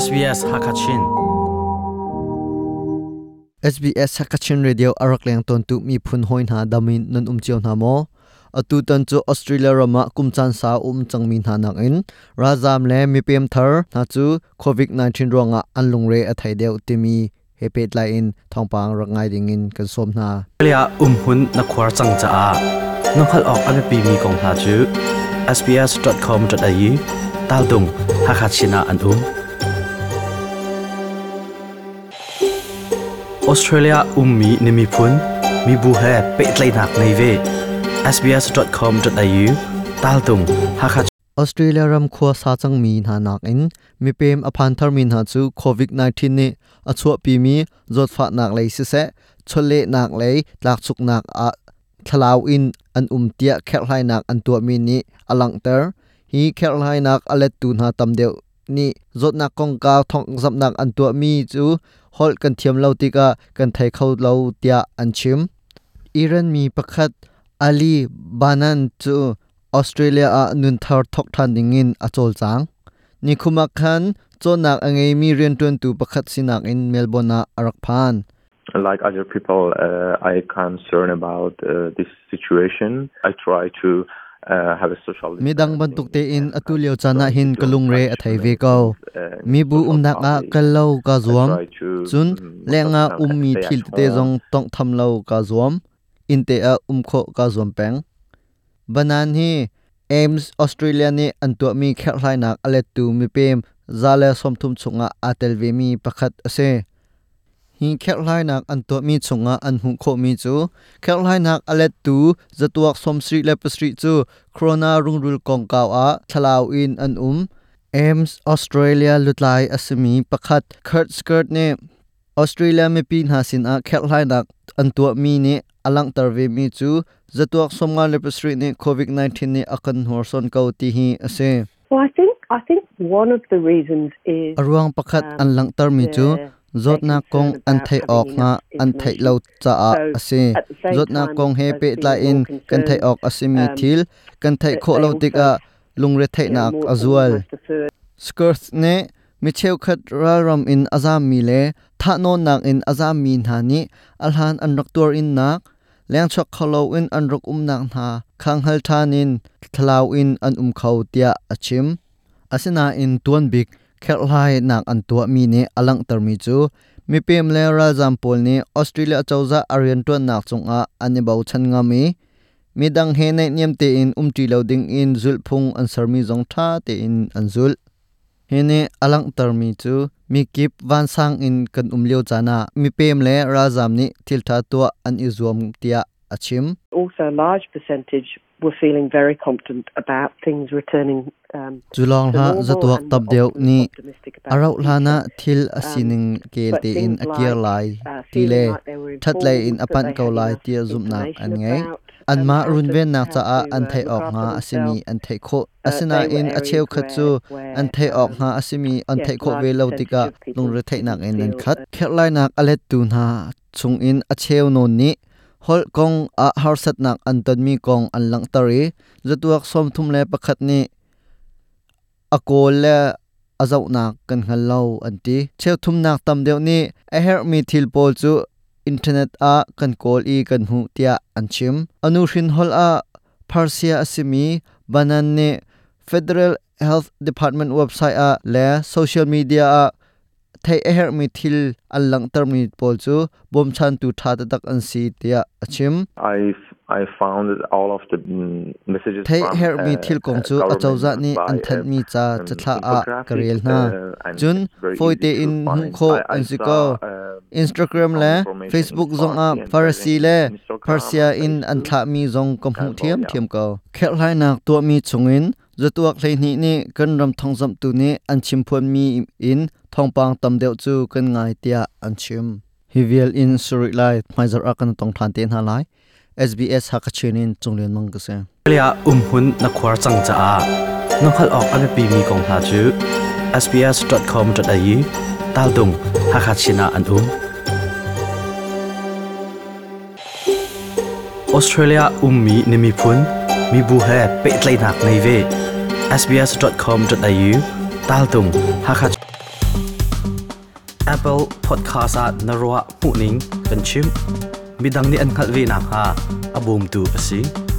SBS Hakachin. SBS Hakachin Radio arak leng ton tu mi phun hoi hna damin nan um chiao hna maw? Atu tan chu Australia rama kumchan sa um changmi hna nak in razam le mipem thar hna chu COVID-19 ruanga an lungre a thai deuh timi he pet lai in thongpang rak ngai ding in kan som hna. Australia umhun na khuar cang caah na hngalh awk a biapi mi kong hna cu sbs.com.au taltung Hakachin ah an um. Australia ummi na miphun mibu he pehtlaihnak ngei ve. sbs.com.au taltung Hakha Australia ram khua sa cangmi hna nakin mipem a phan tharmi hna cu COVID-19 nih a chuahpimi zawtfahnak lei siseh, chawlehnak lei tlakchuknak ah thlalau in an um tiah kherhhlainak an tuahmi nih a langhter. Hi kherhhlainak a lettu hna tam deuh nih zawtnak kongkau thawngzamhnak an tuahmi cu holh kan thiam lo tikah kan thei kho lo tiah an chim. Iran mi pakhat Ali Banan cu Australia ah nunthar thawk ṭhan dingin a cawlcang. Nikhum ah khan cawnnak a ngeimi rianṭuantu pakhat sinak in Melbourne ah a rak phan. Like other people, I concern about this situation. I try to have a social Midang bantuk tein atu lio caan ah hin ka lungre a thei ve ko. Mibu umnak ah kal lo kaa zuam. Cun lengah ummi thil tete zong tawnghtham lo kaa zuam. Innte ah um khawh kaa zuam peng. Banan hi Ames Australia nih an tuahmi kherhhlainak a lettu mipem 130 chungah aa tel vemi pakhat a si. Hi kherhhlainak an tuahmi chungah an hmuh khawhmi cu kherhhlainak a lettu zatuak 77 cu corona rungrul kongkau ah thlalau in an um. Ames Australia lutlai a simi pakhat Kurt Skirt nih Australia mipi hna sinah kherhhlainak an tuahmi nih a langhter vemi cu zatuak 57 nih COVID-19 nih a kan hnorsuan ko ti hi a si. Well, I think one of the reasons is A ruang pakhat an langhtermi cu zawtnak kong an theih awk hnga an theih lo caah a si. Zawtnak kong he pehtlai in kan theih awk a simi thil kan theih khawh lo tikah lungretheihnak a zual. Skirth nih mi cheukhat ralram in a zammi le thahnawnnak in a zammi hna nih a hlan an rak tuar innak lengchuak kho loin an rak umnak hna kha hngal ṭhan in thlalau in an um kho tiah a chim. Asinain tuanbik kherhhlainak an tuahmi nih a langhtermi cu mipem le ralzam pawl nih Australia cozah a rianṭuannak cungah an i bochan ngam i midang he naihniam tein umṭi lo dingin zulhphung an sermi zong ṭha tein an zulh. Hi nih a langhtermi cu mikip vansang in kan um lio caan ah mipem le ralzam nih thilṭha tuah an i zuam tiah a chim. Also a large percentage were feeling very confident about things returning Cu lawng hlah, zatuak tam deuh nih a rauh hlan ah thil a sining kel tein a kir lai ti le ṭhatlei in a panh ko lai tiah zumhnak an ngei. Anmah runvennak caah an theih awk hnga a simi an theih khawh. Asinain a cheukhat cu an theih awk hnga a simi an theih khawh ve lo tikah lungretheihnak in an khat. Kherhlainak a lettu hna chungin a cheu nawn nih holh kong ah harsatnak an tonmi kong an langhter i zatuak 31 nih a kawl le a zohnak kan hngal lo an ti. Cheuthumnak tam deuh nih a herhmi thil pawl cu internet ah kan kawl i kan hmuh tiah an chim. Anu hrin holh ah Persia a simi Banan nih Federal Health Department website ah le social media ah theih a herhmi thil an langhtermi pawl cu bawmchantu ṭha taktak an si tiah a chim. I found all of the messages Theih herhmi thil kong cu acozah nih an thanhmi ca cathlah ah ka rel hna. Cun fawi tein hmuh khawh an si ko. Instagram le Facebook zongah Farsi le Persia in an thlahmi zong ka hmuh ṭhiamṭhiam ko. Kherhhlainak tuahmi chungin zatuak 12 nih kan ram thawngzamhtu nih an chimphuanmi in thawngpang tam deuh cu kan ngai tiah an chim. Hi vial in suri lai hmaizarh ah kan tong ṭhan te hna lai. SBS Hakachin in Cunglian Mang ka si. Australia umhun na khuar cang caah na hngalh awk a biapimi kong hna cu sbs.com.au taltung Hakachin ah an um. Australia ummi na miphun mibu he pehtlaihnak ngei ve. sbs.com.au taltung Hakachin. Apple Podcast ah na ruah hmuhning kan chim. Midang nih an hngalh ve nakhnga a bawmtu a si.